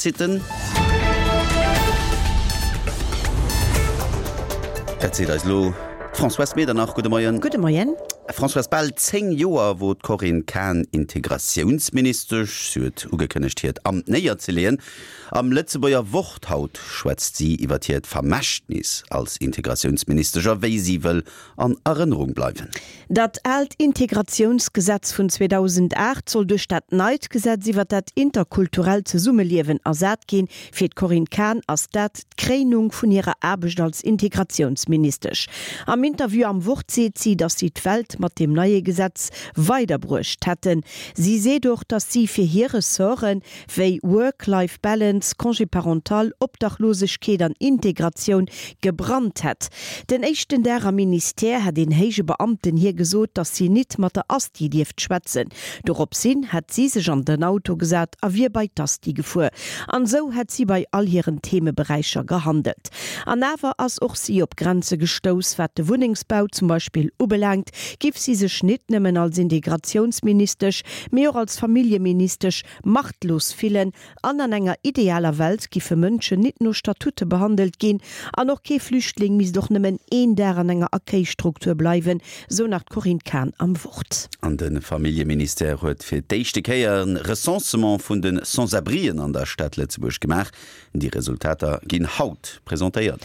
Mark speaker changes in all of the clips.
Speaker 1: Sitten. Dat seet eis elo d'Françoise Medernach. Gudde Moien.
Speaker 2: Gudde Moien.
Speaker 1: Françoise, bal 10 Joer wor d'Corinne Cahen Integratiounsministesch. Si huet ugekënnegt, hiert Amt néierzeleeën. Am Lëtzebuerger Wort haut schwätzt si iwwer hiert Vermächtnis als Integratiounsministesch a wéi si wëll an Erënnerung bleiwen.
Speaker 2: Dat aalt Integratiounsgesetz vun 2008 soll duerch dat neit Gesetz iwwer dat interkulturellt Zesummeliewen ersat ginn. Fir d'Corinne Cahen ass dat d'Kréinung vun hirer Aarbecht als Integratiounsministesch. Am Interview am Wort seet si, datt si d'Welt mat deem neie Gesetz weiderbruecht hätten. Si seet och, datt si fir hir Ressorten, wéi Work-Life Balance, Congé parental, Obdachlosegkeet an Integratioun gebrannt hätt. Den éischten Dag am Ministère hätt een héije Beamten hir gesot, datt si nit mat der Asti dierft schwätzen. Doropshin hätt si sech an den Auto gesat a wier bei d'Asti gefuer. An esou hätt si bei all hiren Themeberäicher gehandelt. An awer ass och si op Grenze gestouss, wat de Wunnengsbau zum Beispill ubelaangt, giff si sech nit nëmmen als Integratiounsministesch, mee och als Familljeministesch machtlos fillen an an enger idealer Welt giffe Mënschen nit no Statute behandelt ginn an och kee Flüchtling misst och nëmmen een Dag an enger Accueilstruktur bleiwen, sou nach d'Corinne Cahen am Wort.
Speaker 1: An de Familljeministère huet fir d'éischte Kéier e Recensement vun de Sans-abrien an der Stad Lëtzebuerg gemaach. Déi Resultater ginn haut presentéiert.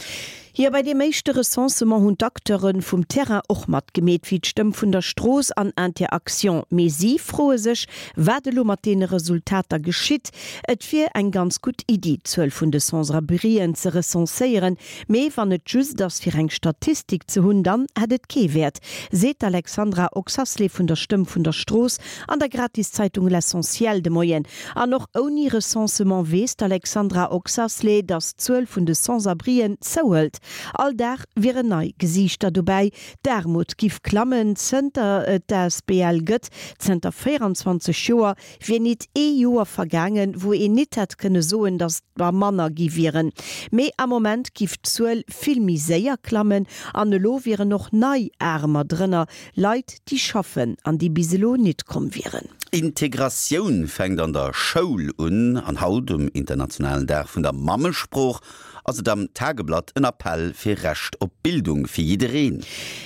Speaker 2: Jo, bei deem éischte Recensement hunn d'Acteure vum Terrain och matgemeet, wéi d'Stëmm vun der Strooss an Inter-Actions. Mee si froe sech, wat elo mat deene Resultater geschitt. Et wier eng ganz gutt Iddi, d'Zuel vun de Sans-abrien ze recenséieren, mee wann et just ass, fir eng Statistik ze hunn, dann hätt et kee Wäert, seet d'Alexandra Oxasley vun der Stëmm vun der Strooss an der Gratiszeitung L'Essentiel de Moien. An och ouni Recensement weess d'Alexandra Oxasley, datt d'Zuel vun de Sans-abrien zouhëlt. All Dag wieren nei Gesiichter dobäi. D'Aarmut giff klammen. Zënter et d'ASBL gëtt, zënter 24 Joer, wier nit ee Joer vergaangen, wou een nit hätt kënne soen, datt der manner gi wieren. Mee am Moment giff d'Zuel vill méi séier klammen an elo wieren och nei Aarmer drënner, Leit, déi schaffen an déi bis elo nit komm wieren.
Speaker 1: Integratioun fänkt an der Schoul un an haut, um internationalen Dag vun der Mammesprooch, ass et am Tageblatt en Appell fir Recht op Bildung fir jiddereen.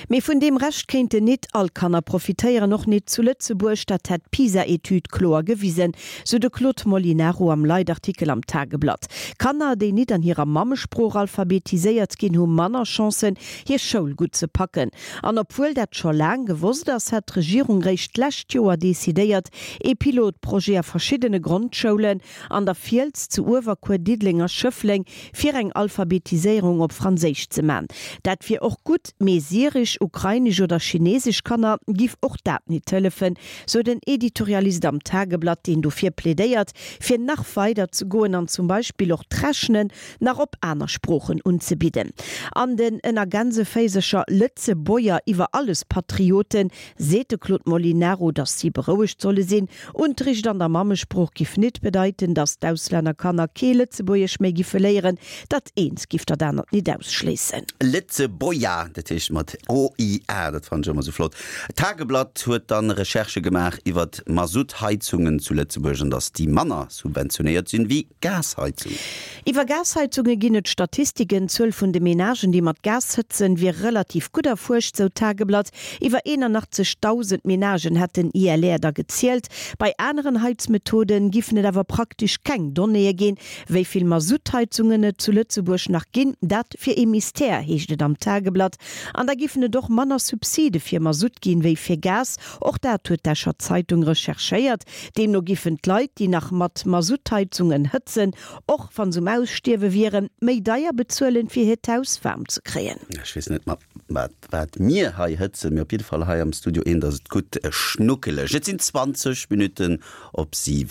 Speaker 2: Mee vun deem Recht kéinten nit all Kanner profitéieren, och nit zu Lëtzebuerg. Dat hätt d'PISA-Etüd kloer gewisen, sou de Claude Molinaro am Leitartikel am Tageblatt. Kanner, déi nit an hirer Mammesprooch alphabetiséiert ginn, hu manner Chancen, hir Schoul gutt ze packen. An obwuel dat scho laang gewosst ass, hat d'Regierung réischt d'lescht Joer decidéiert, ee Pilotprojet a verschiddene Grondschoulen an der Fiels, zu Uewerkuer, Diddeleng a Schëffleng fir eng Alphabetiséierung op Franséisch ze man. Dat wier och gutt, mee syresch, ukrainesch oder chinesesch Kanner giff och dat nit hëllefen, sou den Editorialist am Tageblatt, deen dofir plädéiert, fir nach weider ze goen an zum Beispill och d'Rechnen nach op aner Sproochen unzebidden. An den ënner Gänseféisercher Lëtzeboier iwwer alles Patrioten seet de Claude Molinaro, datt si berouegt solle sinn. Unterricht an der Mammesprooch giff nit bedeiten, datt d'Auslännerkanner kee Lëtzebuergesch méi giffe léieren. Dat eent giff dat anert nit ausschléissen.
Speaker 1: Lëtzeboia, dat heescht mat o-i-a, dat fannen ech ëmmer sou flott. D'Tageblatt huet dann Recherchë gemaach iwwert Masuttheizungen zu Lëtzebuerg an datt déi manner subventionéiert sinn wéi Gasheizungen.
Speaker 2: Iwwer Gasheizunge ginn et Statistiken. D'Zuel vun de Menagen, déi mat Gas hëtzen, wier relativ gutt erfuerscht, sou d'Tageblatt. Iwwer 81.000 Menagen hätt den ILR der gezielt. Bei aneren Heizmethode giffen et awer praktesch keng Donnéeë ginn. Wéi vill Masuttheizungen et zu Lëtzebuerg nach ginn, dat wier ee Mystère, heescht et am Tageblatt. An da giffen et och manner Subside fir Masutt ginn, wéi fir Gas. Och dat huet d'Escher Zeitung recherchéiert. Deemno giffen d'Leit, déi nach mat Masuttheizungen hëtzen, och wa se um Ausstierwe wieren, méi deier bezuelen, fir hiert Haus waarm ze kréien.
Speaker 1: Ech weess net mat wat mir hei hëtzen, mee op jidde Fall hei am Studio eent ass et gutt schnuckeleg. Et sinn 20 Minutten op 7.